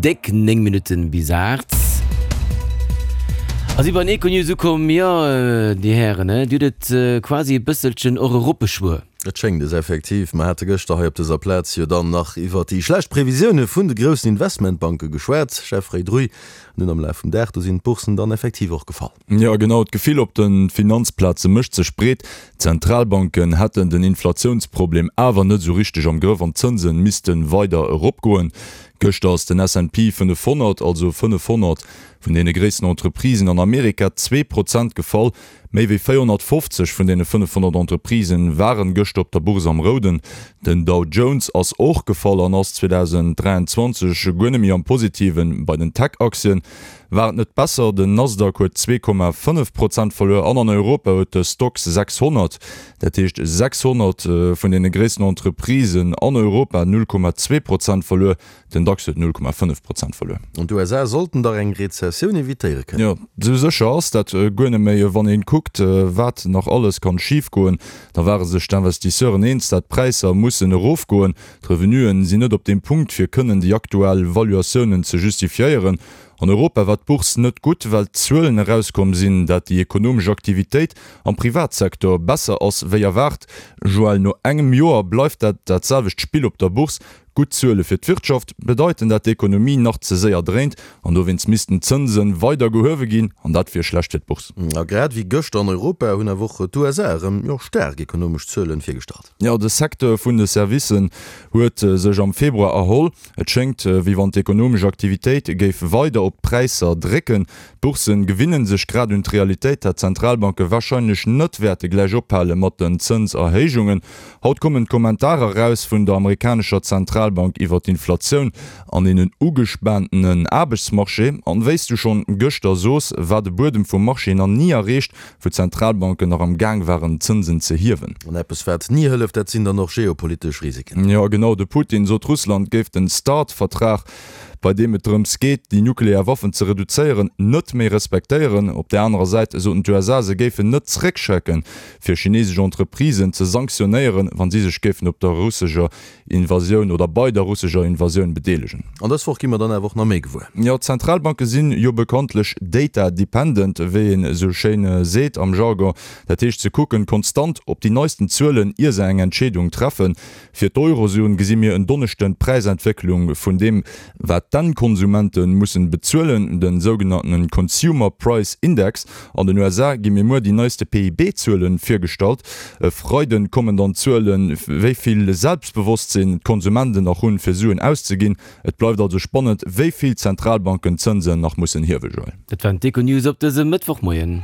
Déck 9 Minutten bis 8. A si bei den Econews ukomm. Jo, Dir Hären, Dir hutt et quasi e bësselchen och eropbeschwuer. Et schéngt es effektiv. Mer hate gëschter hei op dëser Plaz jo dann nach iwwert déi schlecht Previsioune vun de groussen Investmentbanke geschwat, Jeffrey Druy. An dunn am Laf vum Dag, do sinn d'Boursen dann effektiv och gefall. Jo genau, d'Gefill op de Finanzplaze mécht sech breet. D'Zentralbanken hätten den Inflatiounsproblem awer net esou richteg am Grëff an d'Zënse misste weider eropgoen. Gëschter ass den S&P 500, also 500 vun deene gréissten Entreprisen an Amerika, 2% gefall. Méi wéi 450 vun deene 500 Entreprisen waren gëschter op der Bourse am Rouden. Den Dow Jones ass och gefall an ass 2023 guer net méi am Positiven. Bei den Tech-Aktien war et net besser, den Nasdaq huet 2,5 Prozent verluer an an Europa huet de Stoxx 600, dat heescht 600 vun deene gréissten Entreprisen an Europa, 0,2 Prozent verluer. Den DAX huet 0,5 Prozent verluer. An d'USA sollten dach eng Rezessioun evitéiere kënnen. Jo, esou sécher ass dat guer net méi. Wann een kuckt, wat nach alles kann schif goen, da ware sech d'Investisseuren eens, dat d'Präisser mussen erofgoen. D'Revenuen sinn net op deem Punkt, fir kënnen déi aktuell Valuatiounen ze justifiéieren. An Europa war d'Bourse net gutt, well d'Zuelen erauskomm sinn, dat déi ekonomesch Aktivitéit am Privatsektor besser ass wéi erwaart. Joël, no engem Joer bleift dat dat selwecht Spill op der Bourse. Gutt Zuele fir d'Wirtschaft bedeiten, dat d'Ekonomie nach ze séier dréint an dowéinst missten d'Zënse weider gehuewe ginn an dat wier schlecht fir d'Bourse. A grad wéi gëschter an Europa hunn awer och d'USA erëm, jo, staark ekonomesch Zuelen virgestallt. Jo, de Secteur vun de Servicen huet sech am Februar erholl. Et schéngt, wéi wann d'ekonomesch Aktivitéit géif weider op d'Präisser drécken. D'Bourssen gewinne sech grad un d'Realitéit, dat d'Zentralbanke warscheinlech net wäerte gläich ophale mat den Zënserhéijungen. Haut kommen d'Kommentarer eraus vun der amerikanescher Zentralbank iwwer d'Inflatioun an een ugespaantenen Aarbechtsmarché. An wéi s du schonn gëschter soos, war de Buedem vum Marché nach ni erreecht, wou d'Zentralbanken nach am Gaang waren d'Zënsen ze hiewen. An eppes wat ni hëlleft, dat sinn dann och geopolitesch Risiken. Jo genau, de Putin sot Russland géif den Start-Vertrag, bei deem et drëms geet déi nuklear Waffen ze reduzéieren, net méi respektéieren. Op där anerer Säit soten d'USA se géifen net zréckschrecken, fir chinesesch Entreprisen ze sanktionéieren, wa si sech géifen op der russescher Invasioun oder bei der russescher Invasioun bedeelegen. An dës Woch gi mer dann awer och nach méi gewuer. Jo, d'Zentralbanke sinn jo bekanntlech data dependent, wéi een esou schéin seet am Jargon. Dat heescht, se kucken konstant op déi neisten Zuelen, ier se eng Entscheedung treffen. Fir d'Eurozon gesi mir en Donneschden d'Präisentwécklung vun deem, wat d'Endkonsumenten mussen bezuelen, den sougenanntenen Consumer Price Index. An den USA gi mir muer déi neiste PIB-Zuelen virgestallt. E Freiden kommen dann d'Zuelen, wéi vill Selbstbewosstsinn d'Konsumenten nach hunn, fir Suen auszeginn. Et bleift also spannend, wéi vill d'Zentralbanken d'Zënsen nach mussen hiewe, Joël. Dat waren d'Econews op dësem Mëttwochmoien.